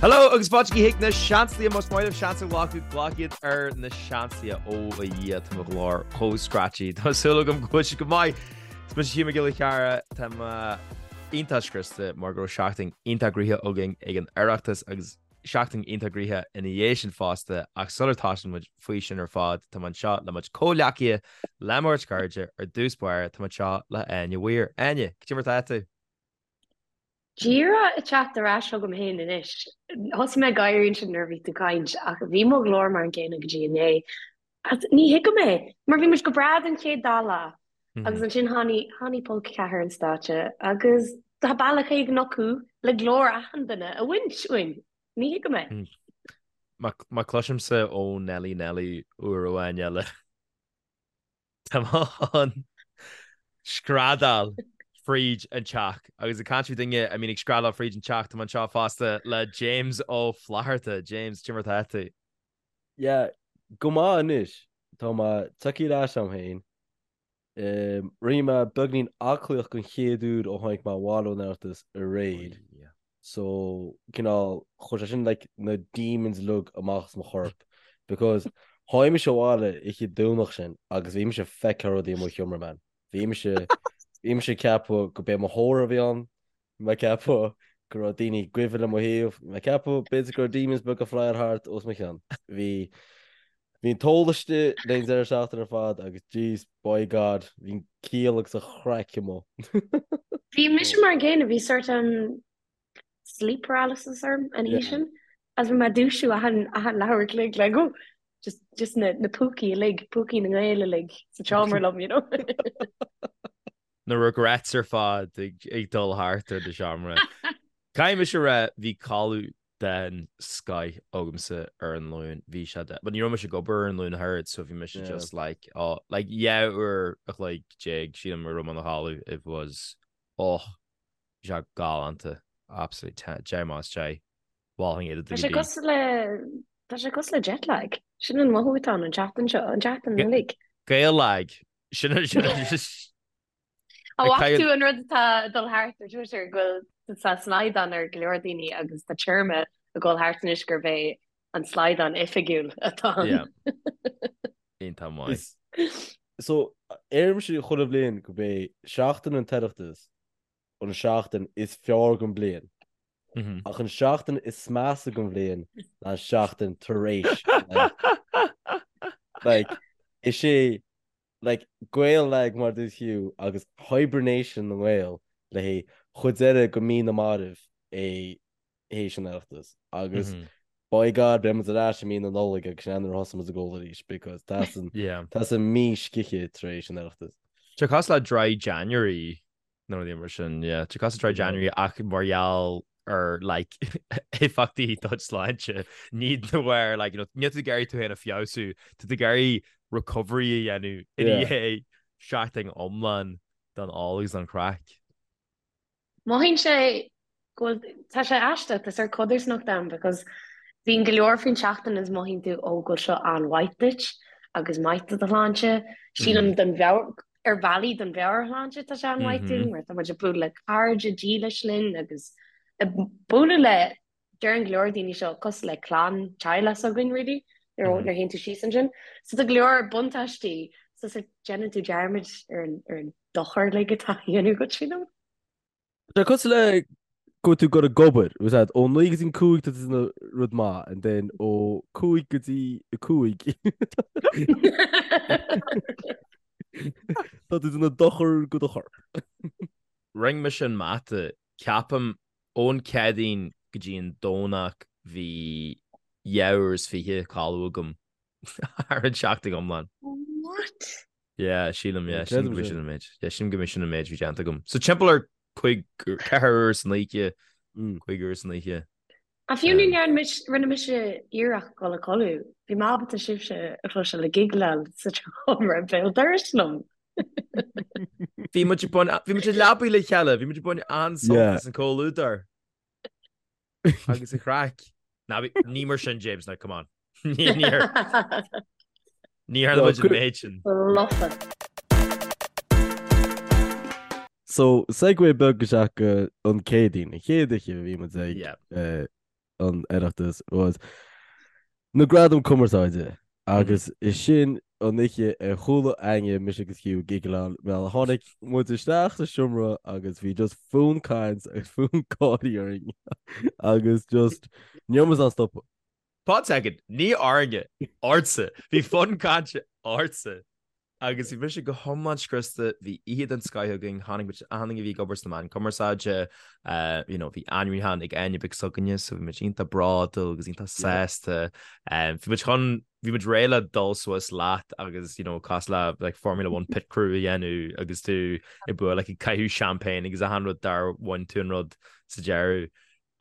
Hello agus fáilte chuig na Seansálaithe más maith libh seans a ghlacadh, glac iad ar na Seansálaithe. Ó a Dhia, tá mo ghlór chomh scratchy. Tá súil agam go bhfuil sibh go maith. Is mise Hugh Mac Giolla Chearra, tá mé iontach scriosta mar go raibh seachtain iontach gnoitheach againn ag an Oireachtas agus seachtain iontach gnoitheach ina dhiaidh sin fosta ach sular tosaíonn muid faoi sin ar fad tá mé anseo le mo chuid comhghleacaithe, le mo chuid cairde, ar dtús báire tá mé anseo le Áine Weir. Áine, cad é mar atá tú? Díreach ag teacht ar ais chugam féin anois. Thosaigh mé ag gáirí ansin nuair a bhí tú ag caint ach bhí mo ghlór mar an gcéanna go dtí inné. Agus ní thuigim é, mar bhí muid go breá don chéad dá lá agus ansin tháinig, tháinig pol 4 an stáitse agus tá bealach éigin acu le glór achan duine a bhaint uainn. Ní thuigim é. Má cloisimse ó Nelly Nelly uair amháin eile, tá mé chun screadaíl fríd an teach. Agus ag caint faoi duine a mbíonn ag screadaíl fríd an teach, tá mé anseo fosta le James Ó Flatharta. James, cad é mar atá tú? Yeah, go maith anois. Tá mé tagtha ar ais a'm féin. Rinne mé beagnín aclaíocht den chéad uair ó tháinig mé abhaile ón Oireachtas aréir. So, cineál, chuir sé sin like na demons uilig amach as mo chorp. Because tháinig mise abhaile oíche Domhnach sin agus bhí mise ag feiceáil rudaí i mo sheomra, man. Bhí mise, bhí mise ag ceapadh go b'é mo thórramh a bhí ann. Bhí mé ag ceapadh go raibh daoine ag guibhe le mo thaobh. Bhí mé ag ceapadh b'fhéidir go raibh demons beaga ag flyáil thart os mo chionn. Bhí bhí an t-ól istigh le an deireadh seachtaine ar fad agus jeez, by God, bhí an ciall agus an chraic amuigh. Bhí mise mar an gcéanna, bhí sort um, sleep paralysis orm an oíche sin. Agus bhí mé ag dúisiú achan achan leathuair a chloig like oh just just na na púcaí uilig, púcaí na nGael uilig sa tseomra liom, you know. na regrets ar fad ag dul thart ar do sheomra. Caithfidh mise a rá, bhí codladh den scoith agamsa ar an Luan, bhí sé de, but ní raibh mise ag obair ar an Luan ach oiread, so bhí mise just like, oh, like 12 uair a chloig, sílim a raibh mé i mo chodladh, it was, oh, bhí sé galánta, absolutely 10, 10 más 10, mholfainn é do Tá sé cosúil le, tá sé cosúil le jet lag, sin an mothú atá ann an tseachtain seo, an tseachtain uilig. Gael lag, Sin sin An bhfaca tú an rud atá ag dul thart ar Twitter go bhfuil tá slaghdán ar go leor daoine agus tá téarma ag dul thart anois gurb é an slaghdán oifigiúil atá ann. Iontach maith. So, deirimse chuile bhliain gurb é seachtain an tOireachtas an seachtain is fearr den bhliain. Ach an seachtain is measa den bhliain ná an seachtain tar éis. Like, is é like, Gael lag mar dúirt Hugh agus hibernation na nGael le haghaidh chuid deireadh go mí na marbh é théis an Oireachtas. Agus by God beidh muid ar ais i mí na Nollag agus sin nuair a thosaigh muid ag ól arís because tá san tá san mí scíthe tar éis an Oireachtas. Tá cosúil le Dry January nó rudaí mar sin, yeah. Tá cosúil le Dry January ach mar gheall ar like éifeachtaí do shláinte, ní de bharr like you know níl tú ag iarraidh tú féin a feabhsú, tá tú ag iarraidh recovery a dhéanamh i ndiaidh seachtain iomlán den ól agus den chraic. Mothaíonn sé go bhfuil, tá sé aisteach, tá sórt codarsnacht ann because bíonn go leor faoin tseachtain is mothaíonn tú ó go bhfuil seo an-mhaith duit agus maith do do shláinte. Sílim don mheabhair, ar bhealaí don mheabhairshláinte tá sé an-mhaith dúinn mar tá muid ag bualadh le cairde dílis linn agus ag bualadh le, deireann go leor daoine seo cosúil le clann, teaghlach s'againn really nuair a théann tú síos ansin. So tá go leor buntáistí so déanann tú dearmad ar an dochar uilig atá á dhéanamh duit sílim. Tá cosúil le go bhfuil tú ag dul ag obair, was that ó 9 go dtí an 5 tá tú ag déanamh rud maith and then ó 5 go dtí 5 tá tú ag déanamh dochar go do chorp. Rinne mise an mata, ceapaim ón Céadaoin go dtí an Domhnach bhí 2 uair is 20 codladh agam thar an tseachtain iomlán. What? Yeah, sílim, yeah, sílim go b'é sin an méid. Yeah, sílim go b'é sin an méid a bhí déanta agam. So timpeall ar cúig, 4 uair san oíche, 5 uair san oíche. Ach fiú ní ndearna mise, rinne mise iarracht dul a codladh. Bhí mé ábalta sibhse a chloisteáil ag gigleáil sa tseomra béal dorais liom. Bhí muid ag baint, bhí muid i leabaidh le chéile, bhí muid ag baint an-sult as an comhluadar. Agus an chraic. Ná bí, ní mar sin, James, now come on. Ní ní ní tharla muid an méid sin. Lofa. So, segue beag isteach go an Céadaoin, an chéad oíche a bhí muid ag Yeah. an Oireachtas was na Gradaim Cumarsáide agus is sin an oíche a chuala éinne mise agus Hugh ag giggleáil mar tháinig muid isteach sa seomra agus bhí just fonn caint agus fonn gáirí orainn agus just ní raibh muid in ann stopadh. Pause second, ní orainne, ortsa. Bhí fonn cainte ortsa. Agus bhí mise go hiomlán scriosta, bhí oíche den scoith againn, tháinig muid, achan duine a bhí ag obair sna meáin cumarsáide, you know, bhí ainmniúchán ag Áine Beag s'againne, so bhí muid iontach bródúil agus iontach sásta. Bhí muid chun, bhí muid réidh le dul suas leat agus, you know, cosúil le like Formula One pit crew a dhéanamh agus tú ag bualadh, like ag caitheamh champagne agus achan rud dár bhain tú an rud sa deireadh.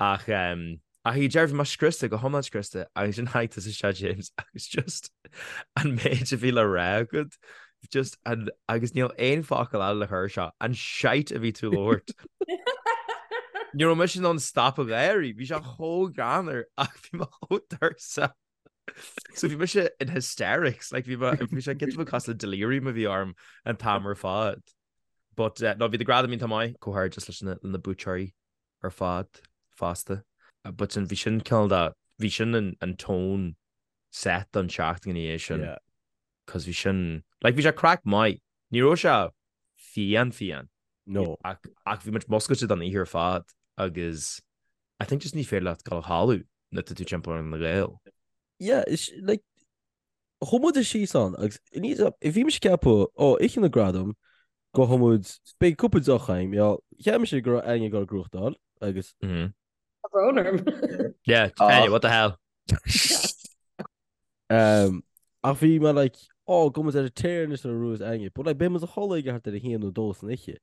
Ach ach ag deireadh bhí mé scriosta, go hiomlán scriosta, agus ansin tháinig tusa isteach James agus just an méid a bhí le rá agat, just an, agus níl aon focal eile le cur air seo, an shite a bhí tú ag labhairt. Ní raibh mise in ann stop ag gáirí, bhí sé chomh greannmhar ach bhí mé chomh tuirseach. So bhí mise in hysterics, like bhí mé, bhí sé giota beag cosúil le delirium a bhí orm an t-am ar fad. But uh, no, bhí na gradaim iontach maith, comhghairdeas leis na, na buaiteoirí. ar fad fosta. But sin, bhí sin cineál de, bhí sin an, an tone set don tseachtain ina dhiaidh sin. Yeah. Cos bhí sin, like bhí sé craic maith. Ní raibh sé fiáin fiáin. No. Ach, ach bhí muid muscailte don oíche ar fad agus I think just ní féidir leat dul a chodladh nuair atá tú timpeall ar na Gaeil. Yeah, is, like, Chuaigh muid síos ann agus ní bhí mise ag ceapadh, ó, oíche na gradam, gabhfaidh muid, beidh cúpla deoch againn, you know, cheap mise go raibh Áine ag dul ag gnóthachtáil agus. Tá brón orm. Yeah, Áine, what the hell? Um, ach bhí mé like, ó, gabhfaidh muid ar an tear anois nuair a bhuafas Áine, but like, beidh muid a chodladh ag thart ar a haon nó dó san oíche,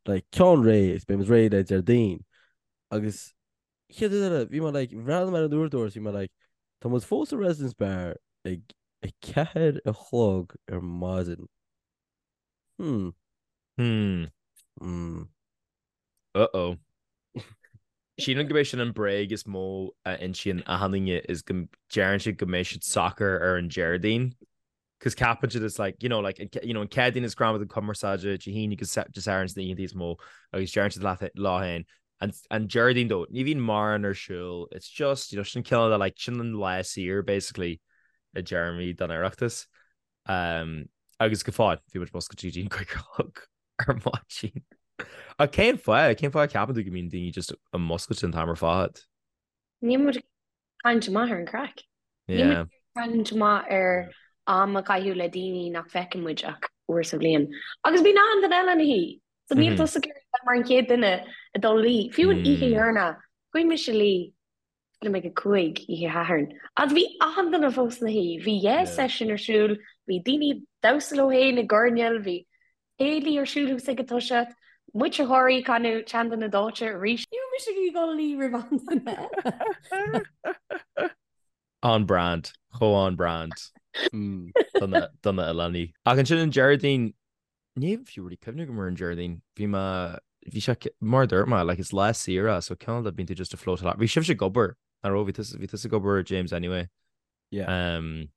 like, ceann réidh agus beidh muid réidh le Déardaoin agus Chéad rud eile, bhí mé like, bhreathnaigh mé ar an uaireadóir is bhí mé like, tá muid fós sa Residence Bar ag 4 a chlog ar maidin. Hmm. Hmm. Hmm. Uh-oh. Sílim gurb é sin an bréag is mó a insíonn achan duine is go deireann siad go mbeidh siad socair ar an Déardaoin. Cos ceapann siad it's like, you know, like, you know, an Chéadaoin is Gradaim Cumarsáide, Dé hAoine agus Dé Sathairn sna oícheanta is mó agus deireann siad leat lá féin. An, an Déardaoin though, ní bhíonn mórán ar siúl, it's just, you know, sin cineál de like, sin an lá saor basically i dtéarmaí don Oireachtas. Um, agus go fóill, bhí muid muscailte go dtí an cúig a chlog ar maidin. Ach cén fáth, cén fáth a ceapann tú go mbíonn daoine just muscailte an t-am ar fad? Níl muid caint maith ar an craic. Níl muid caint maith ar am a chaitheamh le daoine nach bhfeiceann muid ach uair sa bhliain. Agus bíonn achan duine eile ina shuí. So níl tusa ag iarraidh bheith mar an chéad duine ag dul a luí. Fiú an oíche dheireanach, chuaigh mise a luí sílim ag a cúig oíche Shathairn. Agus bhí achan duine fós ina shuí. Bhí yeah session ar siúl, bhí daoine ag damhsa leo féin i gcoirnéal, bhí céilí ar siúl thuas ag an toiseacht, muid ag gáirí ag canadh Teannta na Dóite arís. Ní raibh mise ag dul a luí roimh aon duine eile. On brand, chomh on brand do na hoileánaigh. Ach ansin an Déardaoin, níl fiú really cuimhne agam ar an Déardaoin, bhí mé, bhí sé, mar a dúirt mé, like is lá saor é so cineál de bíonn tú just ag float along. Bhí sibhse ag obair, nach raibh? Bhí tusa, bhí tusa ag obair James anyway. Yeah. Um,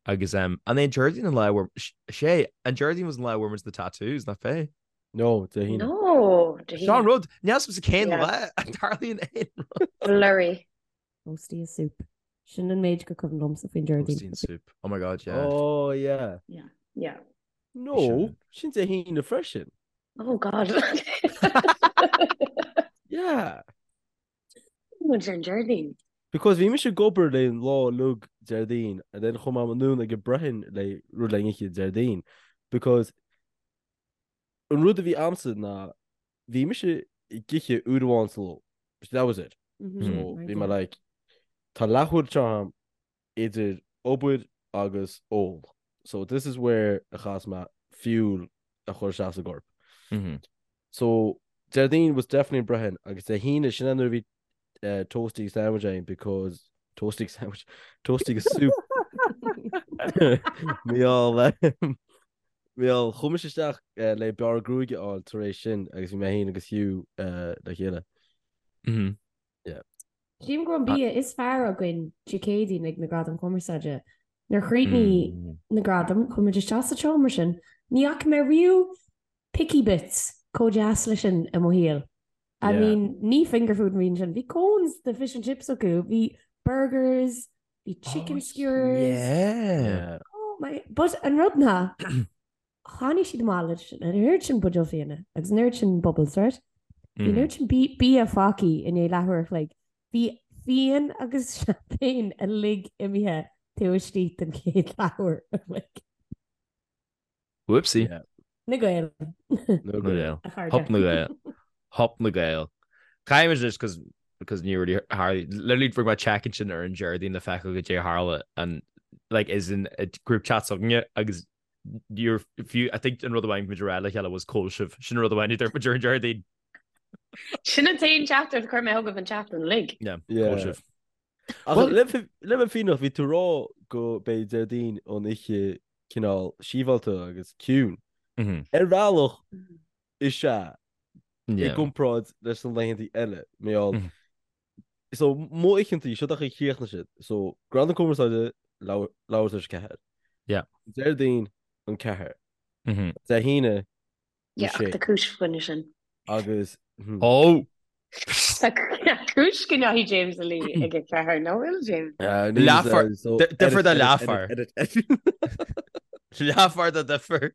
agus um, an é an Déardaoin an lá where sé an Déardaoin was an lá where the tattoos nach b'é? No, Dé hAoine. No, Dé hAoine. Seo an rud, níl a fhios agamsa cén lá a dtarlaíonn aon rud. Blurry. Toastie is soup. Sin an méid gur cuimhin liomsa faoin Déardaoin. Toastie and soup. Oh my god, yeah. Oh, yeah. Yeah, yeah. No, sin Dé hAoine freisin. Oh god. Yeah. Muid ar an Déardaoin. Because bhí mise ag obair le an lá uilig Déardaoin and then chuaigh mé anonn ag an Brighin le rud le n-ithe Déardaoin because an rud a bhí a'msa ná bhí mise ag ithe uair amháin sa ló. That was it. So bhí mé like tá leathuair anseo a'm idir obair agus ól. So this is where a chaithfeas mé fuel a chur isteach sa gcorp. So Déardaoin was definitely an Brighin agus Dé hAoine sin é nuair a bhí uh, toastie agus sandwich againn because toastie agus sandwich toastie agus soup Míall Míall chuaigh mise isteach uh, le bearradh gruaige a fháil tar éis sin agus bhí mé féin agus Hugh uh, le chéile. Mm -hmm. Yeah. Sílim go raibh an bia is fearr againn Dé Céadaoin ag na Gradaim Chumarsáide. Nuair a chríochnaigh na gradaim, chuaigh muid isteach sa tseomra sin. Ní fhaca mé riamh picky bits chomh deas leis sin i mo shaol. I mean, ní finger food a bhí ansin. Bhí cones de fish and chips acu, bhí. burgers, bhí chicken skewers. Yeah. Oh my, but an rud ná, tháinig siad amach leis an oiread sin buidéal fíona agus an oiread sin bubbles, right? Bhí an oiread sin bia fágtha i ndiaidh leathuair a chloig. Bhí fíon agus champagne uilig imithe taobh istigh den chéad leathuair a chloig. Whoopsie. Yeah. Na Gaeil. Na Gaeil. A chairde. Hup na Gaeil. Hup na Gaeil. Caithfidh muid cos because ní really tharla literally rinne mé check ansin ar an Déardaoin le feiceáil goidé a tharla and like is in a group chat s'againne agus you're fiú I think an rud amháin muid a rá le chéile was cá bhfuil sibh sin an rud amháin a dúirt muid ar an Déardaoin. Sin an t-aon teachtaireacht a chuir mé chugaibh an tseachtain uilig. Yeah, Yeah. cá bhfuil sibh. Ach Well- le le bheith fírinneach bhí tú ag rá go beidh Déardaoin an oíche cineál síobhalta agus ciúin. Mhm. Ar bhealach is ea i Yeah. gcomparáid leis na laethanta eile. Mar gheall Mhm. So mo oícheantaí seo an chaoi a chríochnaigh siad. So Gradaim Cumarsáide leathuair tar éis a ceathair. Yeah. Déardaoin an ceathair. Mhm. Dé hAoine an Yeah, ach sé. tá cúis fá choinne sin. Agus hmm. Oh! Tá cúis go ndeachaigh James a luí ag a ceathair, nach bhfuil James? Uh, níl, Leathuair- uh, so di- difear edit, do edit, leathuair. edit, edit, edit. Leathuair do difear.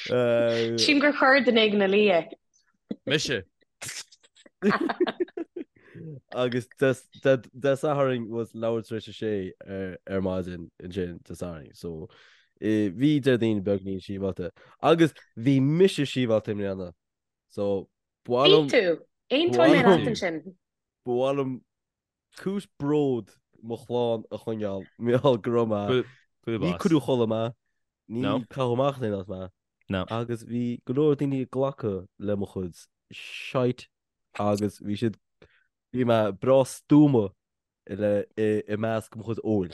Uh, Sílim gur chuir duine éigin a luí é. Mise. Agus Dé Sathairn was leathuair tar éis a sé ar ar maidin ansin Dé Sathairn. So eh, bhí Déardaoin beagnín síobhalta. Agus bhí mise síobhalta i mbliana. So Bhí ba mhaith liom tú. Aontóidh mé Bhuel- leat ansin. ba mhaith liom cúis bród mo chlann a choinneáil mar gheall go raibh mé. Ní cuireadh a chodladh mé, ní caitheadh amach as aon áit mé. Agus bhí go leor daoine ag glacadh le mo chuid shite agus bhí siad, bhí mé breá stuama le i measc mo chuid óil.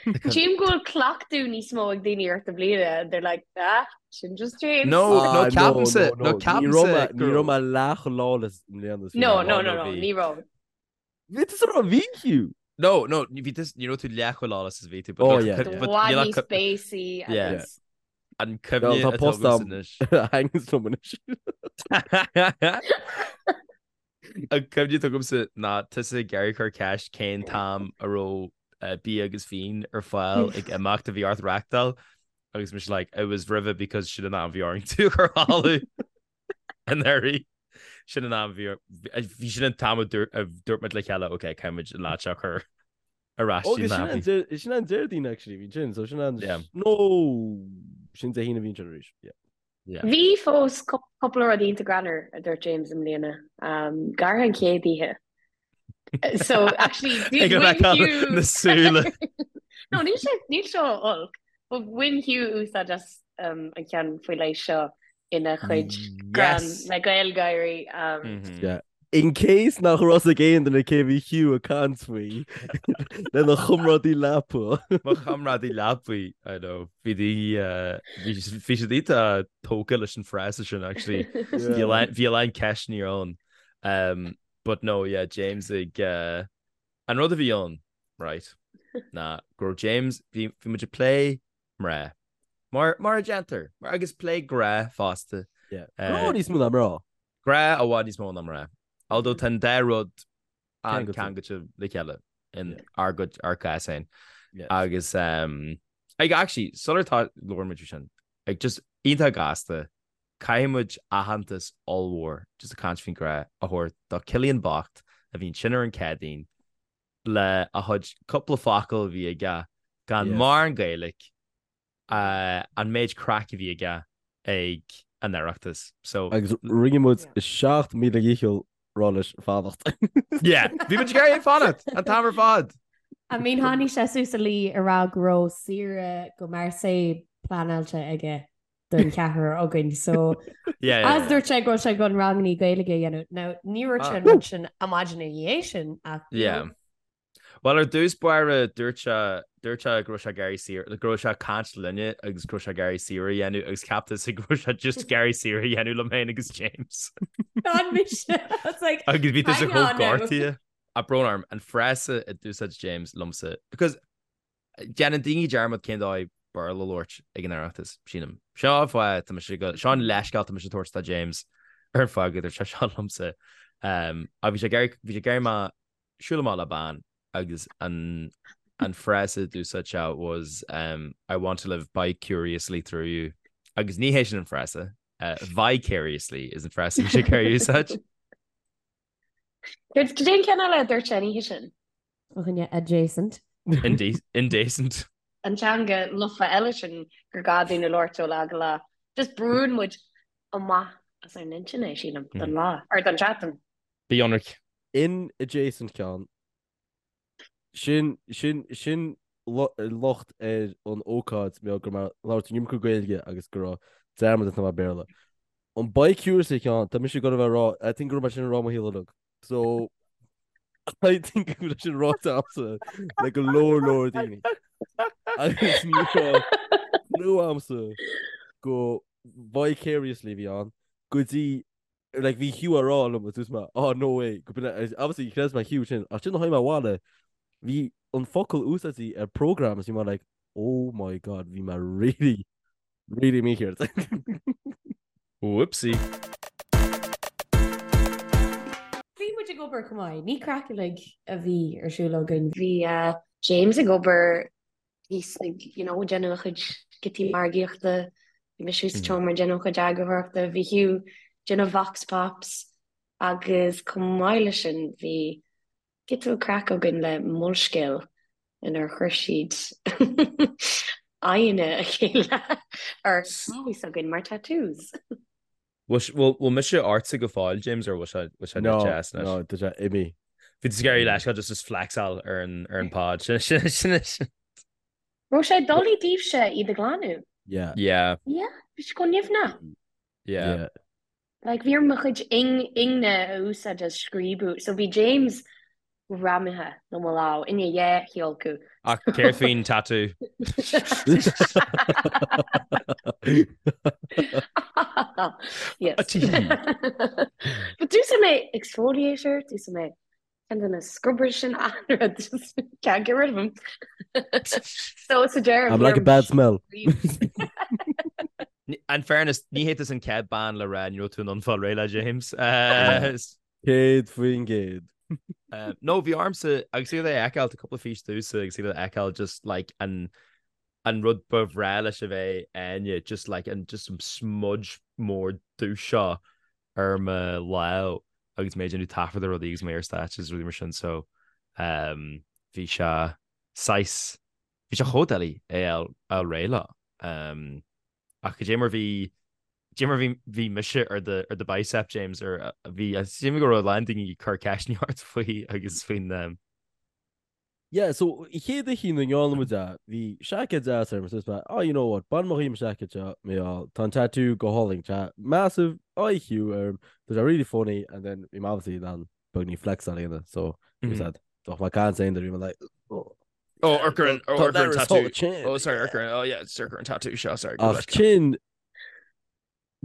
Sílim go bhfuil cleachtadh níos mó ag daoine ort i mbliana, they're like, ah, sin just James. No, no, Ah, ceapaimse, no, no, no, no. Ní raibh ceapaimse mé, ní go raibh mé leath chomh lawless i mbliana is bhí No, mé. no, no, no, no, bhí. ní raibh. Bhí tú sa raibh bhí Hugh. No, no, bhí tú, ní raibh tú leath chomh lawless is bhí tú, but Oh, no, yeah, but yeah. I bhfad níl níos ach béasaí Yeah. agus an Well, cuimhne tá atá post agamsa am anois. hangs liom anois. An cuimhne atá agamsa ná tusa ag iarraidh cur ceist cén t-am a raibh eh, bia agus fíon ar fáil ag imeacht a bhí ort reáchtáil agus mise like it was roimhe because sin an am a bhí orainn tú a chur a chodladh anuraidh. Sin an am a bhí bhí sin an t-am a dúirt a dúirt muid le chéile ok caithfidh muid an lad seo a chur ar ais Ó, dtí sin an an nappy. Déar- sin an Déardaoin actually bhí sin, so sin an Yeah. No sin Dé hAoine a bhí sin arís. Yeah. Yeah. Bhí fós cúpla rud iontach greannmhar a dúirt James i mbliana. Um, go háirithe an chéad oíche. So actually Ag an bhain fheiceáil Hugh na súile. No, níl sé níl seo olc, but bhain Hugh úsáid as um, an ceann faoi leith seo ina chuid greann Yes. le GaelGáirí. Um, Mhm. Yeah. In case nach raibh ag aon duine cé bhí Hugh ag caint faoi lena chomrádaí leapa. Mo chomrádaí leapaí, I know. Bhí daoine, eh, bhí bhí siad iontach tógtha leis an frása sin actually. Bhí a lán- bhí a lán ceisteanna ann. Um, but no, yeah, James ag eh, an rud a bhí ann, right, ná go raibh James, bhí bhí muid ag plé mná. Mar mar a déantar, mar agus plé grá fosta. Yeah. Eh, Grá níos mó ná mná. Grá i bhfad níos mó ná mná. Although tá an dá rud Ceangailte. an-ceangailte le chéile in Yeah. ár gcuid ár gcás féin. Yes. Agus um, ag actually sular tá labhair muid faoi sin, ag just iontach gasta, caithfidh muid aitheantas ollmhór just ag caint faoin grá a thabhairt do Cillian bocht a bhí ansin ar an Chéadaoin le a chuid cúpla focal a bhí aige gan Yes. mórán Gaeilge an méid craic a bhí aige ag an Oireachtas. So Agus rinne muid 7,000 dhícheall rá leis fanacht. yeah, bhí muid ag iarraidh é fanacht an t-am ar fad. I mean tháinig sé suas a luí ag rá go raibh saoire go Marseille pleanáilte aige don cheathrar againn so Yeah, yeah, as yeah. dúirt sé go raibh sé chun ranganna Gaeilge a dhéanamh. Now ní raibh sé an rud sin an maidin ina dhiaidh sin ach you Yeah. know. Bhuel, ar dtús báire, dúirt sé, dúirt sé go raibh sé ag iarraidh saoire, go raibh sé ag caint linne agus go raibh sé ag iarraidh saoire a dhéanamh agus cheap tusa go raibh sé just ag iarraidh saoire a dhéanamh liom féin agus James. Gan mise. I was like, Agus bhí tusa hang chomh on now. gortaithe. Ach brón orm, an frása a d'úsáid James liomsa, because déanann daoine dearmad cén dóigh Béarla a labhairt ag an Oireachtas, sílim. Seo an fáth, tá mise go, seo an leithscéal tá mise ag tabhairt do James ar an fáth go dúirt sé seo liomsa. Um, ach bhí sé ag iarraidh, bhí sé ag iarraidh mé. Siúl amach le bean agus an an frása a d'úsáid sé was um, I want to live bi-curiously through you. Agus ní hé sin an frása. Uh, vicariously is an frása bhí sé ag iarraidh úsáid. Cad é an ceann eile a dúirt sé an oíche sin? Fá choinne adjacent. Indecent. An teanga lofa eile sin gur gá dúinn a labhairt ó lá go lá. Just brúnn muid amach as ár n-intinn é, sílim, don lá, or don tseachtain. Bí ionraic. In adjacent ceann. Sin, sin, sin locht ar an ócáid mé go raibh mé ag labhairt an iomarca Gaeilge agus go raibh dearmad déanta agam Béarla. An bi-curiously ceann, tá mise ag dul a bheith ag rá, I think go raibh mé sin ag rá mo shaol uilig. So, I think go raibh sin ráite agamsa le go leor leor daoine. Agus ní raibh clue agamsa go vicariously a bhí ann go dtí like bhí Hugh á rá liom agus dúirt mé oh no way go b'in é obviously chreid mé Hugh sin ach sin a tháinig mé abhaile bhí an focal úsáidte ar program agus bhí mé like oh my god bhí mé really really mícheart. Whoopsie. Bhí muid ag obair chomh maith, ní craic uilig a bhí ar siúl againn. Bhí James ag obair thíos ag, you know, déanamh a chuid giotaí margaíochta, bhí mise sa tseomra ag déanamh a chuid eagarthóireachta, bhí Hugh ag déanamh vox pops agus chomh maith leis sin bhí giota craic againn le Molscéal inar chuir siad aghaidheanna a chéile ar lámha s'againn mar tattoos. Bhfuil mise ortsa go fóill, James, or bhfuil sé bhfuil sé No, deas anois? no, tá sé imithe. Bhí tú ag iarraidh leithscéal just just flexáil ar an ar an pod. Sin sin sin sin. Raibh sé doiligh daoibhse iad a ghlanadh? Yeah. Yeah. Yeah, bhí sé chomh nimhneach. Yeah. Yeah. Like bhí orm mo chuid ingne a úsáid as scríobadh. So bhí James greamaithe le mo lámh i ndiaidh a thíolacadh. Ach céard faoin tatú? Yes. But d'úsáid mé exfoliator, d'úsáid mé ceann de na scrubbers sin an-rud, just can't get rid of them. So sa deireadh I'm like a bad smell. In fairness, ní hé tusa an chéad bean le rá ní raibh tú in ann fáil réidh le James. 100%. No, bhí ormsa agus iad a fheiceáil, tá cúpla fís domhsa agus iad a fheiceáil just like an an rud ba bhreá leis a bheith Áine, just like an just an smudge mór dubh seo ar mo lámh agus mé ag déanamh taifead ar rudaí agus mé ar stáitse agus rudaí mar sin so um, bhí sé saghas bhí sé chomh doiligh é a fháil réidh leo. Um, Ach cad é mar bhí, cad é mar bhí, bhí mise ar do, ar do bicep, James, ar bhí, sílim go raibh a lán daoine ag cur ceisteanna ort faoi agus faoin, um. Yeah, so an chéad oíche ina ndearna muid é, bhí seaicéad deas orm, so mé, oh, you know what, bainfidh mé dhíom an seaicéad seo, mé á, tá an tattoo go hálainn, tá massive IQ orm, tá sé really funny, and then bhí mé obviously in ann beagáinín flexáil a dhéanamh, so, mm -hmm. said, Doch má can saying that bhí mé like, oh. Oh, amharc ar an, oh, amharc ar an tattoo. Oh, sorry, amharc ar an, oh yeah, amharc ar an tattoo seo, sorry. Ach sin,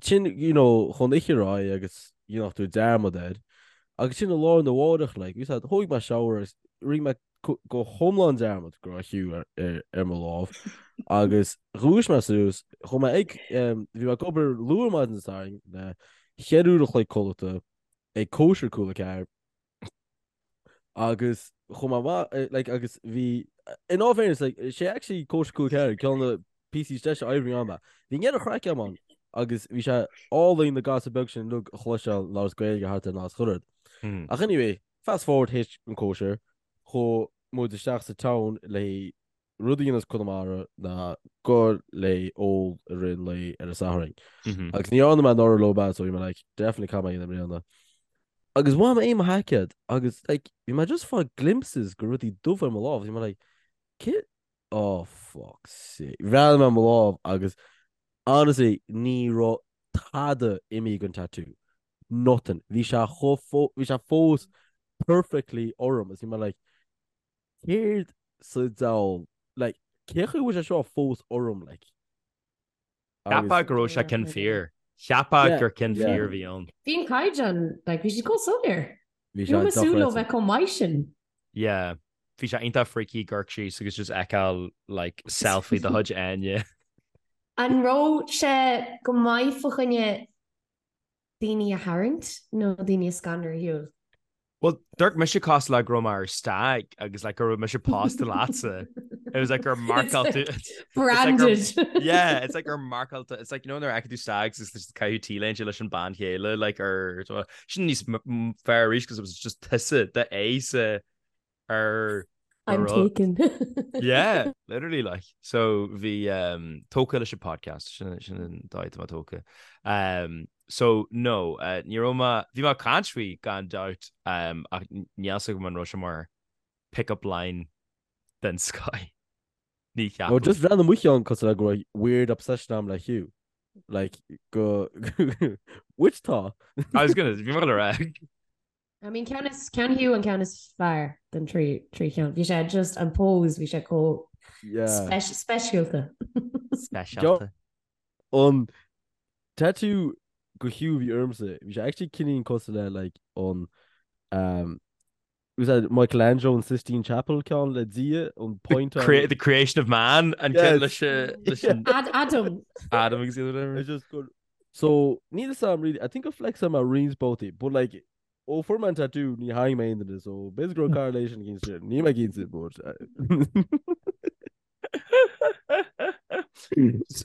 sin, you know, chun oíche ar aghaidh agus you know, tú dearmad air. Agus sin i lá arna mhárach, like, bhí said, thóig mé shower agus rinne mé go hiomlán dearmad go raibh Hugh ar, ar, ar mo lámh. Agus dhúisigh mé suas, chuaigh mé ag, um, bhí mé ag obair luath ar maidin Dé Sathairn le cheithre uair a chloig codlata ag cóisir cúl a ceathair. Agus chuaigh mé amach, like, agus bhí, in all fairness, like, sé actually cóisir cúl a ceathair, ceann de na píosaí is deise oibre ann. Bhí an chraic agam ann agus bhí sé álainn na gasúir beag sin uilig a chloisteáil ag labhairt Gaeilge thart ar an áit chuile rud. Ach anyway, fast forward théis an cóisir, chuaigh muid isteach sa town le rud a dhéanamh as Conamara ná goil le ól i rith an lae ar an Satharn. Agus ní dhearna mé anuraidh leo bad so bhí mé like definitely caithfidh mé a dhéanamh i mbliana. Agus bhain mé mo sheaicéad agus like bhí mé just fáil glimpses de rudaí dubha ar mo lámh bhí mé like cé oh fuck sake. Bhreathnaigh mé ar mo lámh agus honestly ní raibh tada imithe den tattoo. Nothing. Bhí sé chomh bhí sé fós perfectly orm agus bhí mé like Céard sa diabhal, like, cé chaoi a bhfuil sé seo fós orm, like? Cheapfá go raibh sé ceann fíor. Cheapfá gur ceann fíor a bhí ann. Bhí an caighdeán, like, bhí siad chomh soiléir. Bhí sé Ní raibh mé súil leo bheith chomh maith sin. Yeah. Bhí sé iontach freaky amharc síos agus just fheiceáil, like, selfie de chuid Áine. An raibh sé go maith fá choinne daoine a tharraingt nó daoine a scanrú ar shiúl? Well, dúirt mise cosúil le go raibh mé ar stag agus like go raibh mise pósta leatsa. It was like gur marcáil tú. Branded. Yeah, it's like gur marcáil tú. It's like, you know, nuair a fheiceann tú stags is just caitheamh T-léinte leis an bean chéile, like ar sin níos fearr arís because it was just tusa the ace ar I'm taken. Yeah, literally like. So bhí um, tógtha leis an podcast sin sin an dóigh atá mé tógtha. Um, so no, uh, ní raibh mé bhí mé ag caint faoi gan dabht um, ach níl a fhios agam an raibh sé mar pick-up line den scoth. Ní Well, cheapaim. just bhreathnaigh mo cheann cosúil le go raibh weird obsession agam le Hugh. Like, go which tá. I was gonna, bhí mé gonna rá. I mean ceann is ceann Hugh an ceann is fearr den trí trí cheann. Bhí sé just an pose bhí sé chomh Yeah. speisialta. Speisialta. An tattoo go Hugh bhí ormsa, bhí sé actually cineál cosúil le like an um, was that Michelangelo an Sistine Chapel ceann le Dia an point The, crea the creation of man an ceann Yes. leis uh, leis an Ad Adam. Adam agus whatever. It's just good. So níl a fhios agam really, I think gur flex mé roinnt babhtaí, but like ó fuair mé an tattoo ní tharraing mé aon duine, so b'fhéidir go raibh correlation against it. Níl mé cinnte, but uh,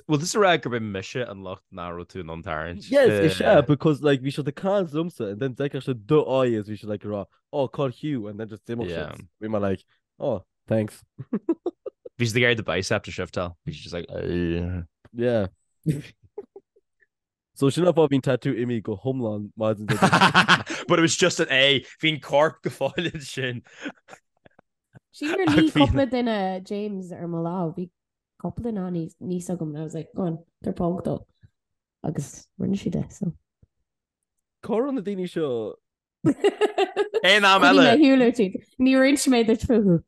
Well, this rá gurb é mise an lucht nach raibh tú in ann tarraingt. Yes, is ea, because like bhí siad ag caint liomsa and then d'fheicfeadh siad do aghaidh is bhí siad like ag rá, oh, call Hugh and then just d'imigh Yeah. siad. Bhí mé like, oh, thanks. Bhí siad ag iarraidh do bicep to shiftáil. Bhí siad just like, "Ugh." Yeah. So sin an fáth bhí an tattoo imithe go hiomlán maidin Dé Domhnaigh. But it was just an A. Bhí an corp go fóill ansin. Sílim gur Ach luigh bhí cúpla duine James ar mo lámh. Bhí cúpla duine ann níos agam and I was like, go on, tabhair póg dó. Agus rinne siad é, so. Cá raibh na daoine seo Aon am Bhí eile. mé shiúil tríd. Níor inis mé duit fúthu.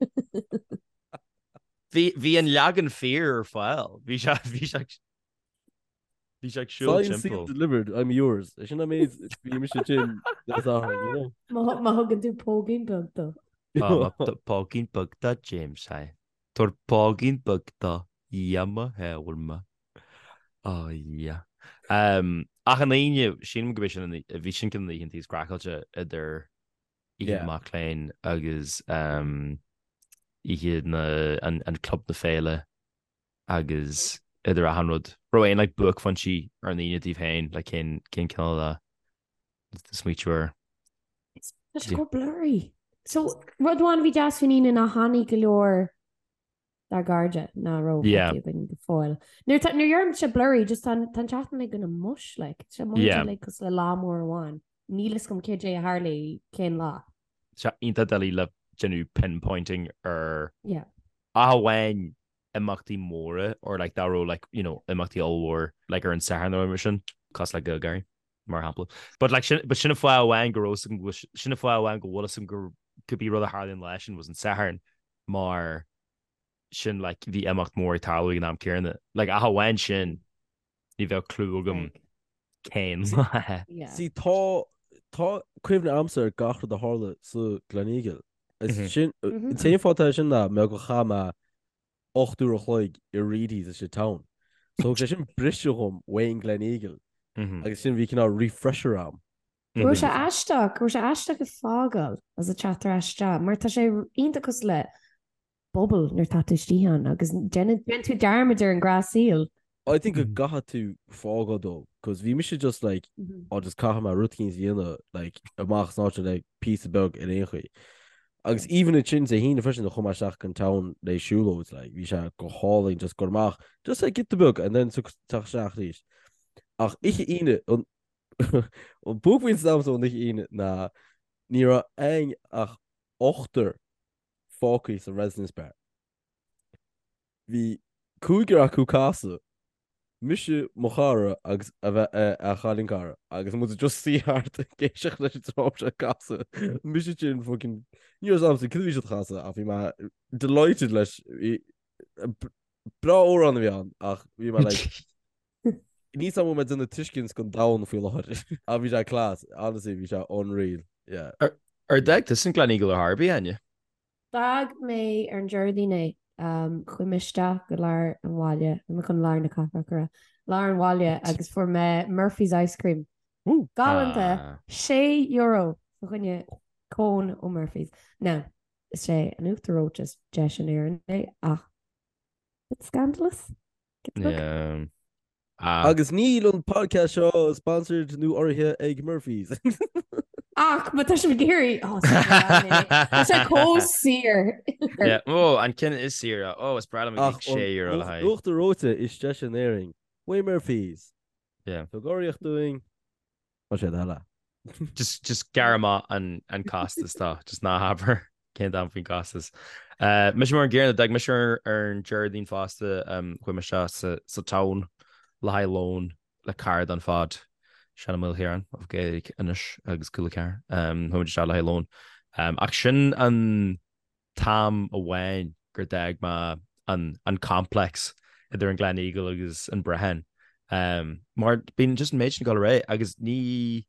Bhí bhí an leagan fíor ar fáil. Bhí sé bhí sé bhí sé ag siúl Signed, sealed, timpeall. delivered, I'm yours. É sin an méid bhí mise sin le Satharn, you know? Má má thugann tú póigín beag dó. Tá póigín beag do James é. Tabhair póigín beag dó Dhia mo shábháil mé. Oh yeah. Um, ach an Aoine, sílim go b'é sin an, bhí sin ceann de na oícheanta is craiceáilte idir Oíche na Yeah. Mac Léinn agus um, oíche na, an, an Club na Féile agus idir achan rud. Raibh aon like, buaicphointí ar an Aoine daoibh féin, like, cén, cén cineál a smaoitiú air? Tá sé chomh blurry. So, rud amháin a bhí deas faoin Aoine ná tháinig go leor dár gcairde nach raibh Yeah. feicthe againn go fóill. Nuair tá- nuair a deirimse blurry, just tá an tá an tseachtain uilig ina mush, like. Tá sé Yeah. like cosúil le lá mór amháin. Níl fhios agam cad é a tharla cén lá. Sé iontach doiligh le déanamh pinpointing ar Yeah. ach amháin imeachtaí móra or like dá raibh like you know imeachtaí ollmhór like ar an Satharn nó mar sin cosúil le GaelGáirí mar shampla. But like sin but sin an fáth amháin go raibh fhios agam go bhfuil sin an fáth amháin go bhfuil fhios agam go cibé rud a tharlaíonn an lá sin was an Satharn mar sin like bhí imeacht mór ag tarlú ag an am céanna. Like ach amháin sin ní bheadh clue agam cén lá. Yeah. See, tá tá cuimhne agamsa ar gach rud a tharla sa Gleneagle. Is Mhm. sin Mhm. an t-aon fáth atá sin ná mar gur chaith mé 8 uair a chloig i Reidy's sa town. So thug sé sin briseadh dhom uaidh an Gleneagle Mhm. agus sin bhí cineál refresher a'm. Raibh sé aisteach, raibh sé aisteach ag fágáil agus ag teacht ar ais isteach, mar tá sé iontach cosúil le bubble nuair atá tú istigh ann agus déanann tú dearmad ar an ngnáthshaol. I think go gcaithfidh tú fágáil dó, cos bhí mise just like, oh just caithfidh mé rud eicínt a dhéanamh like amach as an áit le píosa beag ar aon chaoi. Agus even ansin Dé hAoine freisin chuaigh mé isteach go town le siúlóid like bhí sé go hálainn just dul amach just like giota beag and then teacht isteach arís. Ach oíche Aoine an An buaicphointe agamsa ón oíche Aoine ná ní raibh againn ach ochtar fágtha sa Residence Bar. Bhí cúigear acu ag casadh, mise, mo chara agus a bheith a chailín cara agus muid just suí thart ag éisteacht leis an dream seo ag casadh. Mise sin fucking ní raibh a fhios agamsa cad a bhí siad a chasadh ach bhí mé delighted leis. Breá amhrán a bhí ann ach bhí mé like Níl a fhios agam an bhfuil mé ag déanamh tuiscint don domhan faoi láthair. Ach bhí sé class, honestly bhí sé unreal, yeah. Ar d'fhág tusa an Gleneagle ar chor ar bith, Áine? D'fhág mé ar an Déardaoin é. Chuaigh mé isteach go lár an bhaile, bhí mé chun lár na cathrach a rá, lár an bhaile agus fuair mé Murphy's Ice Cream. Galánta! €6 fá choinne. Cone ó Murphy's. Now, is é an uachtar reoite is deise in Éirinn é ach it's scandalous. Yeah. Agus níl an podcast seo sponsored nó urraithe ag Murphy's. Ach má tá sibh ag iarraidh oh, tá sé chomh saor. Yeah, oh, an ceann is saoire. Oh, is breá liom ag €6 le haghaidh. Uachtar reoite is deise in Éirinn. Uaidh Murphy's. Yeah. Tug urraíocht dúinn. Tá sé eile. Just, just gearr amach an, an costas tá, just ná habair cén t-am faoin costas. Uh, mise mar an gcéanna, d'fhág mise ar, ar an Déardaoin fosta, um, chuaigh mise sa, sa town le haghaidh lón le cara don phod, Seán Ó Maoilchiaráin of Gaeilge Anois agus Cúla 4. Um, chuaigh muid isteach le haghaidh lón. Um, ach sin an t-am amháin gur d'fhág mé an an complex idir an Gleneagle agus an Brehon. Um, mar bíonn just an méid sin ag dul ar aghaidh agus ní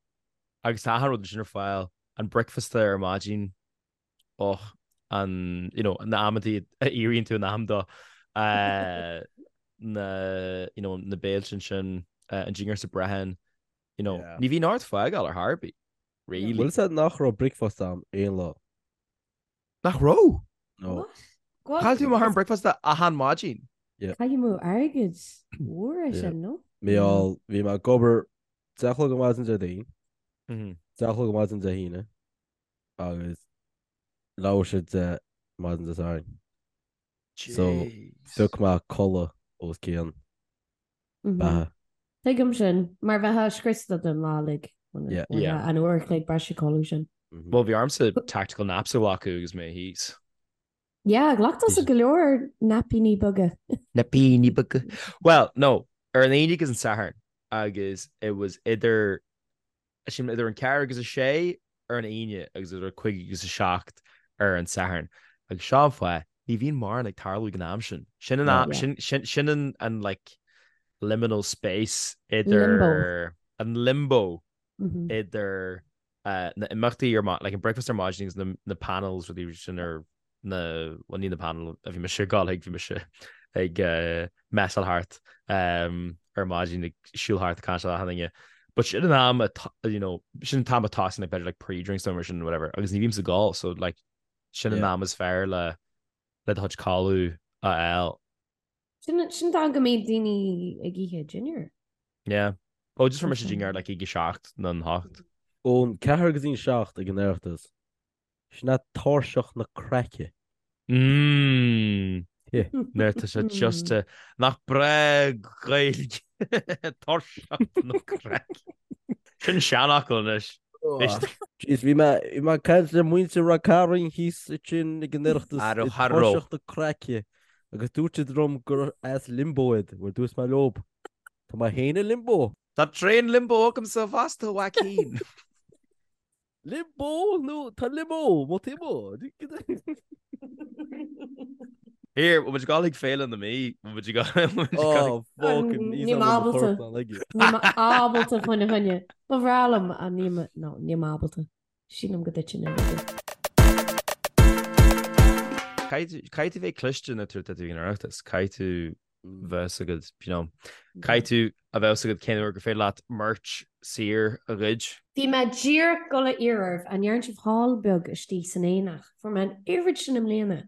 agus tá achan rud ansin ar fáil, an bricfeasta ar maidin, och, an, you know, na amantaí a éiríonn tú in am dó, uh, na, you know, na béilte ansin, uh, an dinnéar sa Brehon, you know, Yeah. ní bhíonn ort fágáil ar chor ar bith, really. Bhfuil a fhios agat nach raibh bricfeasta a'm aon lá? Nach raibh? No. What? Chaill tú amach ar an bricfeasta achan maidin. Caitheamh amú airgid mhór é sin, no? Bhuel, bhí mé ag obair 10 a chlog ar maidin Déardaoin, 10 a chlog ar maidin Dé hAoine agus leathuair tar éis 10 maidin Dé Sathairn. So, phioc mé codladh os cionn beatha. Tuigim sin, mar bheifeá scriosta don lá uilig. Yeah. An uair a chloig breise codladh sin. Bhuel, bhí ormsa tactical naps a ghlacadh agus mé thíos. Yeah, ghlac tusa go leor naipíní beaga. Naipíní beaga. Well, no, ar an Aoine agus an Satharn agus it was idir Sílim idir an ceathrú agus a sé ar an Aoine agus idir a cúig agus a seacht ar an Satharn. Agus seo an fáth, ní bhíonn mórán ag tarlú ag an am sin. Sin an am, sin, sin, sin an, an like liminal space idir Limbo. an limbo idir uh, na imeachtaí ar ma- like an breakfast ar maidin agus na, na panels rudaí sin ar na, bhuel ní na panel a bhí mise ag gabháil chuig, bhí mise ag messáil thart ar maidin ag siúl thart ag caint le achan duine. But sin an am you know, sin an t-am a tosaíonn like b'fhéidir like pre-drinks nó mar sin whatever agus ní bhímse ag ól so like sin an am is fearr le le do chuid codladh a fháil. Sin sin an t-am go mbíonn daoine ag ithe dinnéar. Yeah. Oh, just fuair mise dinnéar like ag a seacht nó an hocht. Ón ceathair go dtí an seacht ag an Oireachtas. Sin é tairseach na craice. Mmm. Nuair tá sé just a... Nach breá Gaeilge. Tairseach na craice. Sin seanfhocal anois. Jeez, bhí mé bhí mé ag caint le muintir Ráth Cairn thíos ansin ag an Oireachtas Aró i haró. dtairseach na craice agus dúirt siad liom gur as limbo iad, bhuel dúirt mé leob, tá mé féin i limbo. Tá tréan limbo agamsa fosta, a Joaquin. Limbo nó tá limbo mo timo. Here, bhfuil muid ag dul chuig Féile na Mí, bhfuil muid ag dul Oh, fucking Níl mé ábalta. Níl mé ábalta faoina choinne. Ba bhreá liom ach níl mé, no, níl mé ábalta. Sílim go dtitfinn uilig. Caithfidh tú bheith cliste nuair atá tú ag an Oireachtas. Caithfidh tú bheith agat, you know, caithfidh tú a bheith agat cén uair gur féidir leat merch saor a ghoid. Bhí mé díreach ag dul a iarraidh oraibh, an ndearna sibh haul beag istigh san aonach? Fuair mé an oiread sin i mbliana.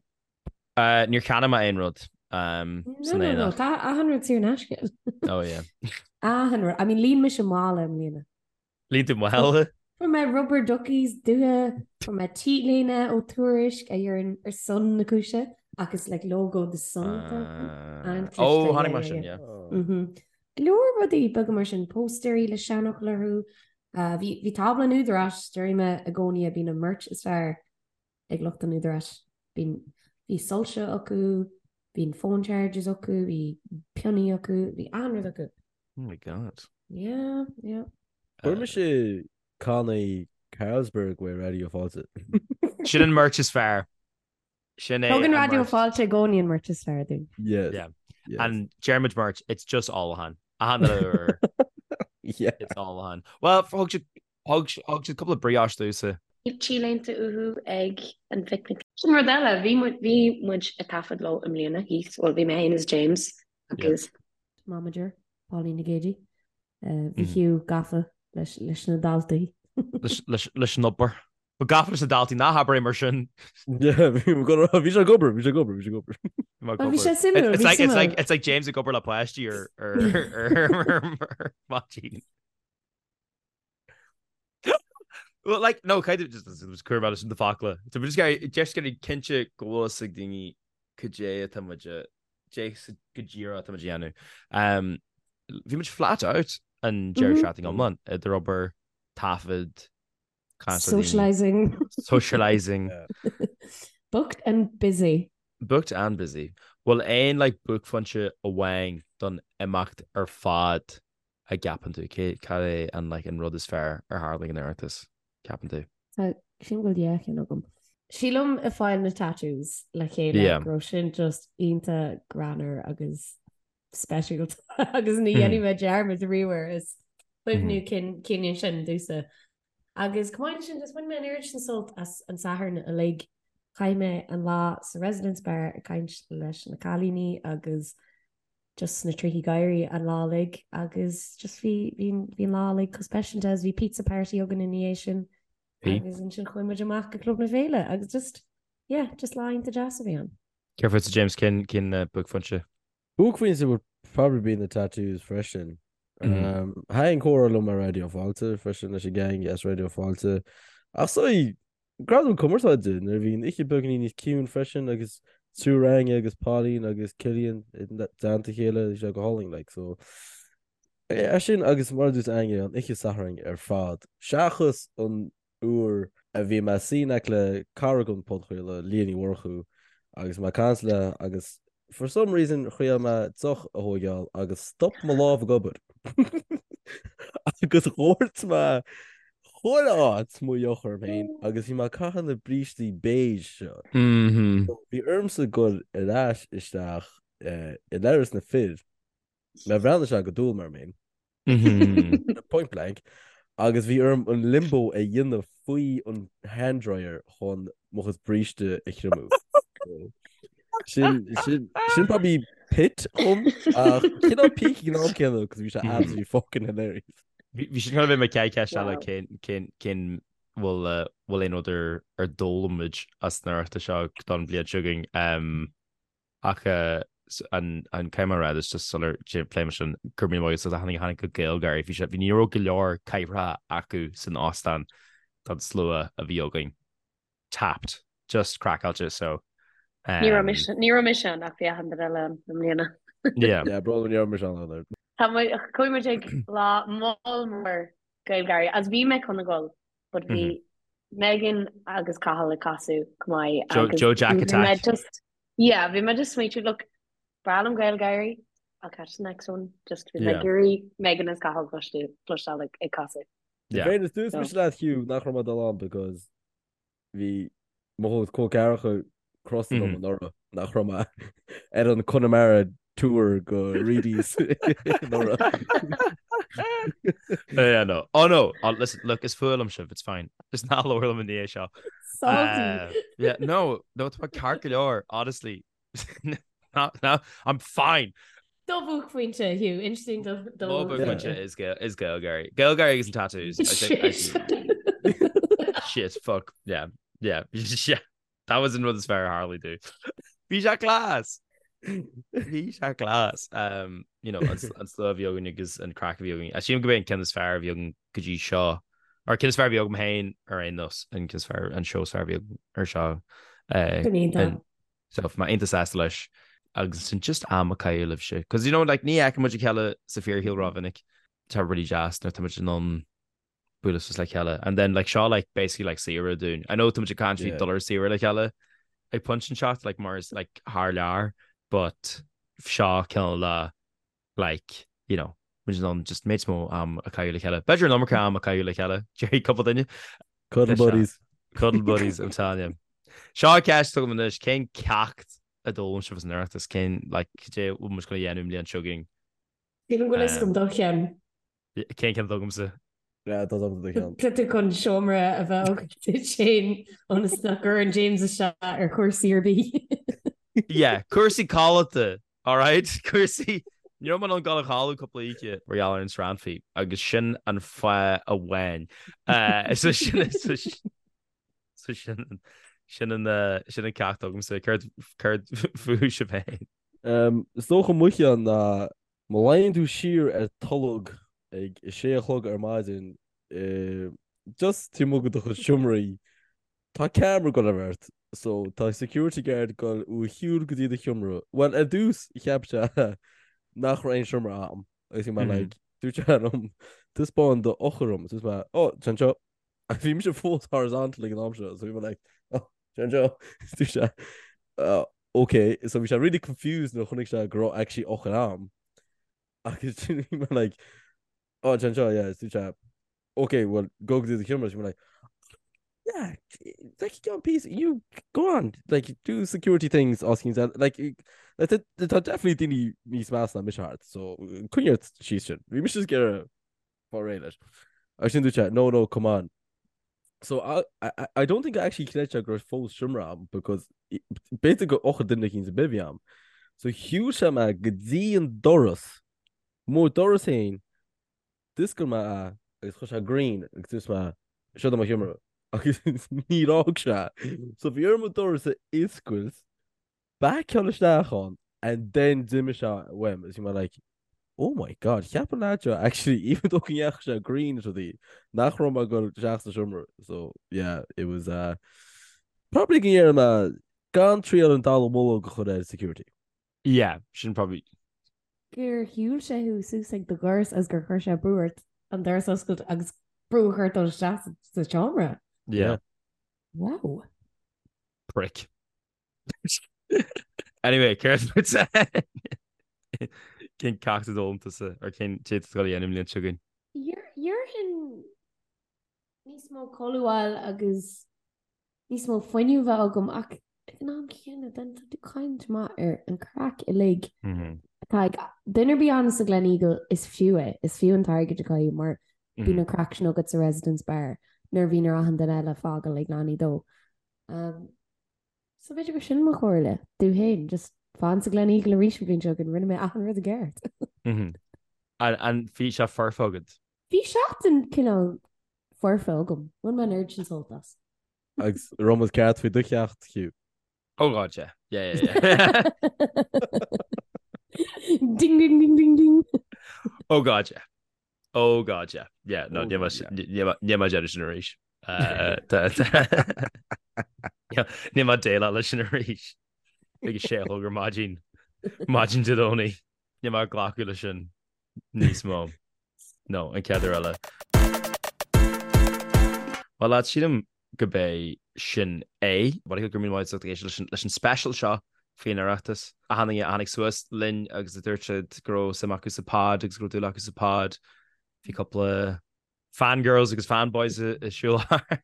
Níor cheannaigh mé aon rud san No, no, no, aonach. tá achan rud saor in aisce. Oh yeah. Achan rud. I mean, líon mise mála i mbliana. Líon tú mála? Fuair mé rubber duckies dubha, fuair mé t-léine ó Tuairisc a deireann ar son na cúise ach is like logo The Sun atá ann. An-chliste, Ó, yeah, chonaic mé yeah, sin, yeah. yeah. Mhm. Go leor rudaí beaga mar sin, póstaerí le seanfhocail orthu. Uh, bhí, bhí tábla an Údaráis, déarfaidh mé i gcónaí a bíonn an merch is fearr ag lucht an Údaráis. Bíonn, bhí soilse acu, bíonn phone chargers acu, bhí pionnaí acu, bhí achan rud acu. Oh my god. Yeah, yeah. Fuair mise cannaí Carlsberg uaidh Raidió Fáilte. Sin an merch is fearr. Sin é Tugann an Raidió merch. Fáilte i gcónaí an merch is fearr dúinn. Yes. Yeah. Yes. And deirimid merch, it's just ólachán. Achan uair Yeah. it's ólachán. Well, thug siad thug thug siad cúpla brioche domhsa. Bhí t-léinte uathu ag an bpicnic. Sin rud eile, bhí muid bhí muid ag taifead leo i mbliana thíos, bhuel bhí mé féin is James agus Momager, Pauline Nic Géidigh. Bhí Hugh gafa leis na daltaí. Leis an obair. Ba gafa leis na daltaí ná habair é mar sin. Yeah, bhí bhí sé ag obair, bhí sé ag obair, bhí sé ag obair. Well, bhí sé suimiúil, It's bhí like, it's like, suimiúil. it's like James ag obair le páistí ar ar ar ar maidin. Well, like, no, kind of just was cur about sin de focla. So we're just gonna just gonna cinnte go bhfuil fhios ag daoine cad é atá muid a- dé go díreach atá muid a dhéanamh. Um, bhí muid flat out an deireadh seachtaine iomlán idir obair, taifead, caint le daoine, Socialising. socialising. Booked and busy. Booked and busy. Bhfuil aon like buaicphointe amháin don imeacht ar fad a gceapann tú? Cé, cad é an like an rud is fearr ar tharla ag an Oireachtas, ceapann tú? Tá, sílim go bhfuil dhá cheann agam. Sílim ag fáil na tattoos le chéile Yeah. go raibh sin just iontach greannmhar agus speisialta agus ní dhéanfaidh mé dearmad riamh air is cuimhniú cinn sin domhsa. Agus chomh maith leis sin, just bhain mé an oiread sin sult as an Satharn uilig. Chaith mé an lá sa Residence Bar ag caint leis na cailíní agus just sna trithí gáirí an lá uilig agus just bhí bhí bhí an lá uilig chomh speisialta agus bhí pizza party againn ina dhiaidh sin agus ansin chuaigh muid amach go Club na Féile agus just yeah, just lá iontach deas a bhí ann. Céard fútsa James, cén cén buaicphointe? Buaicphointe would probably be the tattoos freisin. Um, Thaitin comhrá liom ar Raidió Fáilte freisin leis an gang as Raidió Fáilte. Ach so Gradaim Cumarsáide nuair a bhí an oíche beagáinín níos ciúin freisin agus triúr againne agus Pauline agus Cillian i dteannta a chéile bhí sé go hálainn like so é sin agus mar a dúirt Áine an oíche Sathairn ar fad seachas an uair a bhí mé suí in aice le cara den podchraoladh, Leah Ní Mhurchú, agus mé ag caint léi agus for some reason thriail mé deoch a thóigeáil agus stop mo lámh ag obair agus dhoirt mé chuile áit mo dheoch orm féin agus bhí mé ag caitheamh na brístí beige seo. Bhí ormsa dul ar ais isteach i leithreas na fir, mé bhreathnaigh sé go dúil mar mé. Point blank. Agus bhí orm an limbo a dhéanamh faoi an hand dryer chun mo chuid bríste a thriomú. Sin, sin, sin probably pit dhom ach cineál peak ag an am céanna cos bhí sé absolutely fucking hilarious. Bhí sin chun a bheith mo chéad cheist eile cén, cén, cén bhfuil, bhfuil aon rud ar, ar d'fhoghlaim muid as an Oireachtas seo don bhliain seo chugainn. Ach an caithfidh mé a rá is just sular pléim sin go raibh míle maith agat as a tháinig go GaelGáirí. Bhí sé bhí ní raibh go leor cathaoireacha acu san óstán don slua a bhí againn. Tapped. Just craiceáilte so. Ní raibh mise ní raibh mise ann ach bhí achan duine eile ann i mbliana. Yeah. Yeah, brón ní raibh mise ann either. Tá muid chuaigh muid ag lá moll mór GaelGáirí as bhí mé chun a dhul but bhí Megan agus Cathal ag casadh go maith agus Joe Jack Attack. just Yeah, bhí mé just smaoitiú, look, breá liom GaelGáirí, I'll catch the next one, just bhí mé ag iarraidh Megan is Cathal cloisteáil ag ag casadh. Yeah. Féin, dúirt mise leat Hugh nach raibh mé ag dul ann because bhí mo chuid col ceathracha crosta liom anuraidh nach raibh mé ar an Connemara tour go Reidy's anuraidh. Yeah, no. Oh no, oh, listen, look, is fuath liom sibh, it's fine. Just ná labhair liom i ndiaidh seo. Salty. Yeah, no, no, tá ceart go leor, honestly. No, no, I'm fine. Do bhuaicphointe, Hugh, inis dúinn do do Mo bhuaicphointe is Gael is GaelGáirí. GaelGáirí agus an tattoos. I think I Shit. Shit, fuck. Yeah, yeah, yeah. That was an rud is fearr a tharla domh. Bhí sé class! Bhí sé class. Um, you know, an slua a bhí againn agus an craic a bhí againn. Sílim go b'é an ceann is fearr a bhí againn go dtí seo. Or ceann is fearr a bhí agam féin ar aon nós, an ceann is fearr, an seó is fearr a bhí agam ar seo. Uh, Go iontach. So bhí mé iontach sásta leis agus sin just am a chaitheamh libhse. Cos you know, like, ní fheiceann muid a chéile sa fíorshaol rómhinic. Tá really deas nuair tá muid in ann bualadh suas le chéile. And then like seo like basically like saoire dúinn. I know tá muid ag caint faoi dul ar saoire le chéile ag pointe inteacht like mar is like thar lear but seo cineál le like you know muid in ann just méid mó am a chaitheamh le chéile. B'fhéidir an iomarca am a chaitheamh le chéile déarfaidh cúpla duine. Cuddle buddies. Cuddle buddies I'm telling you. Seo ceist agam anois cén ceacht a d'fhoghlaim sibh as an Oireachtas cén like cad é bhfuil muid chun a dhéanamh an bhliain seo chugainn? Sílim go bhfuil a fhios agam do cheann. Cén ceann atá agamsa? Yeah, tá agam do cheann. Tá tú chun seomra a bheith agat duit féin ionas nach gcuireann James isteach ar chúrsaí ar bith. Yeah, cúrsaí codlata, alright? Cúrsaí, ní raibh mé in ann dul a chodladh cúpla oíche mar gheall ar an srannfaí agus sin an fáth amháin. So sin, so sin. So sin sin an sin an ceacht agamsa. Céard céard fúibh sibh féin? Is dócha mo cheann ná má luíonn tú siar ar tolg ag a sé a chlog ar maidin just taobh amuigh de do chuid seomraí Tá ceamara ag dul ort so tá security guard ag dul ó shiúl go dtí do sheomra. Bhuel ar dtús cheap sé nach raibh aon seomra a'm agus bhí mé like dúirt sé liom taispeáin do eochair dhom dúirt mé oh tá anseo agus bhí mise fós horizontal ag an am seo so bhí mé like oh tá anseo dúirt sé oh, okay so bhí sé really confused nuair a chonaic sé go raibh actually eochair a'm agus bhí mé like oh tá anseo yeah dúirt sé Ok, well, go go dtí do sheomra, bhí mé like, yeah, like, go on, peace, you, go on, like, do security things, os cinn like, like, tá definitely daoine níos measa ná mise thart, so, coinnigh ort síos sin. Bhí mise ag iarraidh fáil réidh leis. Agus sin dúirt sé, no, no, come on. So, I, I, I don't think I actually chreid sé go raibh fós seomra a'm, because b'fhéidir gur eochair duine eicínt ar bith a bhí a'm. So, shiúil sé mé go dtí an doras, mo doras féin, D'oscail mé é agus chuir sé green agus dúirt mé, seo do mo sheomra. Agus níor fhág sé. So bhí orm an doras a oscailt, baiceáil isteach ann and then d'imigh sé uaim agus bhí mé like, oh my god, cheap an lad seo actually even though go ndeachaigh sé green is rudaí, nach raibh mé ag dul isteach sa seomra. So yeah, it was uh, probably go ndéarfaidh mé gan triail an dallamullóg a chur ar security. Yeah, sin probably. Gur shiúil sé thú suas ag do dhoras agus gur chuir sé brú ort an doras a oscailt agus brú a chur ort dul isteach sa seomra. Yeah. Wow. Prick. Anyway, céard fút? Cén ceacht a d'fhoghlaim tusa or cén rud atá tú ag dul a dhéanamh an bhliain seo chugainn? Déarfainn níos mó codladh a fháil agus níos mó fuinnimh a bheith agam ach ag an am céanna then tá tú caint maith ar an craic uilig atá ag duine ar bith ann sa Gleneagle is fiú é, is fiú an t-airgead a chaitheamh mar bíonn an craic sin agat sa Residence Bar nuair a bhíonn ar achan duine eile fágáil ag leanaí dó. Um, so b'fhéidir gur sin mo chomhairle domh féin, just fan sa Gleneagle arís an bhliain seo chugainn, rinne mé achan rud i gceart. An bhí sé foirfe agat? Bhí seachtain cineál foirfe agam. Bhain mé an oiread sin sult as. Agus raibh muid ceart faoi do cheacht, Hugh. Oh God, yeah. Yeah, yeah, yeah. Ding, ding, ding, ding, ding. Oh God, yeah. Oh God, yeah. Yeah, no, níl mé déanamh sin arís. Níl mé déileáil leis sin arís. Ag a sé a chlog ar maidin. Maidin Dé Domhnaigh. Níl mé ag glacadh leis sin níos mó. No, an chéad uair eile. Bhuel lads, sílim go b'é sin é. Go raibh míle maith agat as ucht éisteacht leis an special seo faoin Oireachtas. Achan duine a tháinig suas linn agus a dúirt siad go raibh suim acu sa pod agus go raibh dúil acu sa pod. Bhí cúpla fangirls agus fanboys ag siúl thart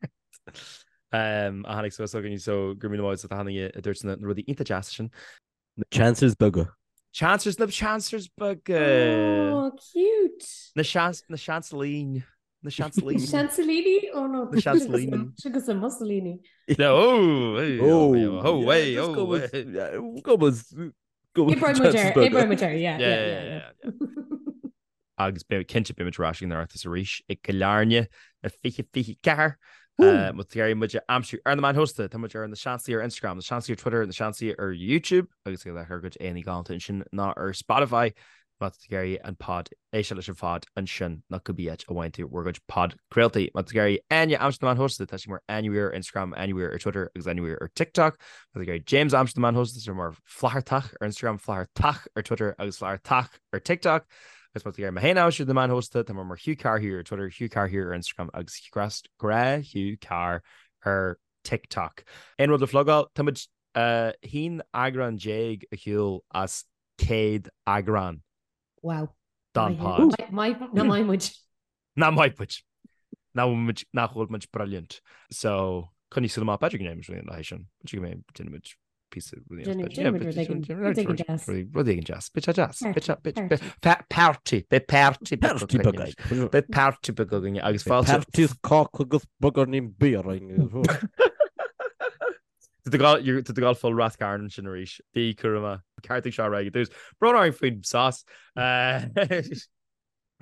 a tháinig suas chugainn so go raibh míle maith agat as ucht achan duine a dúirt na rudaí iontach deasa sin. Na chancers beaga. Chancers, na chancers beaga. Oh, cute. Na seans, na seansalín. Na seansalín. Seansalíní? Oh no. Na seansalíní. Agus a Mussolini. No, oh, hey, oh, oh, oh, hey, oh, hey. Go go go Oibreoidh muid air, oibreoidh muid air, yeah, yeah, yeah, yeah. Agus beidh cinnte beidh muid ar ais ag an Oireachtas arís i gCill Airne i 2024. Má tá tú ag iarraidh muid a aimsiú ar na meáin shóisialta, tá muid ar Na Seansálaithe ar Instagram, Na Seansálaithe ar Twitter, Na Seansálaithe ar YouTube agus ag ár gcuid aíonna galánta ansin ná ar Spotify má tá tú ag iarraidh an pod, éisteacht leis an phod ansin nó cibé áit a bhfaigheann tú bhur gcuid podchraoltaí. Má tá tú ag iarraidh Áine a aimsiú ar na meáin shóisialta, tá sí mar Áine Weir ar Instagram, Áine Weir ar Twitter agus Áine Weir ar TikTok. Má tá tú ag iarraidh James a aimsiú ar na meáin shóisialta, tá sé mar Flathartach ar Instagram, Flathartach ar Twitter agus Flathartach ar TikTok. Agus má tá tú ag iarraidh mé féin a aimsiú ar na meáin shóisialta, tá mé mar Hugh Carr Hugh ar Twitter, Hugh Carr Hugh ar Instagram agus Grá Hugh Carr ar TikTok. Aon rud le plugáil? Tá muid 11 eagrán ar shiúl as 100 eagrán. Wow. Don pod. Nach maith muid. Nach maith muid. Nach bhfuil muid, nach bhfuil muid brilliant. So, coinnigh súil amach, b'fhéidir go ndéanfaidh muid rud éigin sin. B'fhéidir go mbeidh, déanfaidh muid píosa rud éigin. Rud éigin deas. Rud éigin deas. Beidh sé deas. Beidh sé, beidh, beidh, party. Beidh party beag againn. Beidh party beag againn agus fáilte. Party is cáca agus beagáinín bia orainn. Tá tú ag gabháil full Rath Cairn ansin arís. Bí cúramach. Ceartaigh seo ar aghaidh i dtús. Brón orainn faoin sos. Beidh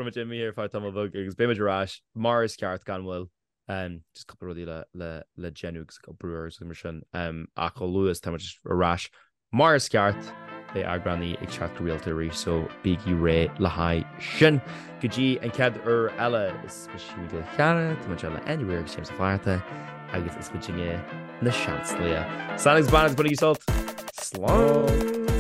muid imithe ar feadh tamall beag agus beidh muid ar ais mar is ceart gan mhoill. Just cúpla rudaí le le le déanamh agus ag obair agus mar sin. Ach chomh luath is tá muid ar ais mar is ceart, beidh eagránaí ag teacht go rialta arís so bígí réidh le haghaidh sin. Go dtí an chéad uair eile, is mise Hugh Mac Giolla Chearra, tá muid le Áine Ní Riain agus James Ó Flatharta agus is muidinne na Seansálaithe. Slán agus beannacht, bainigí sult! Slán!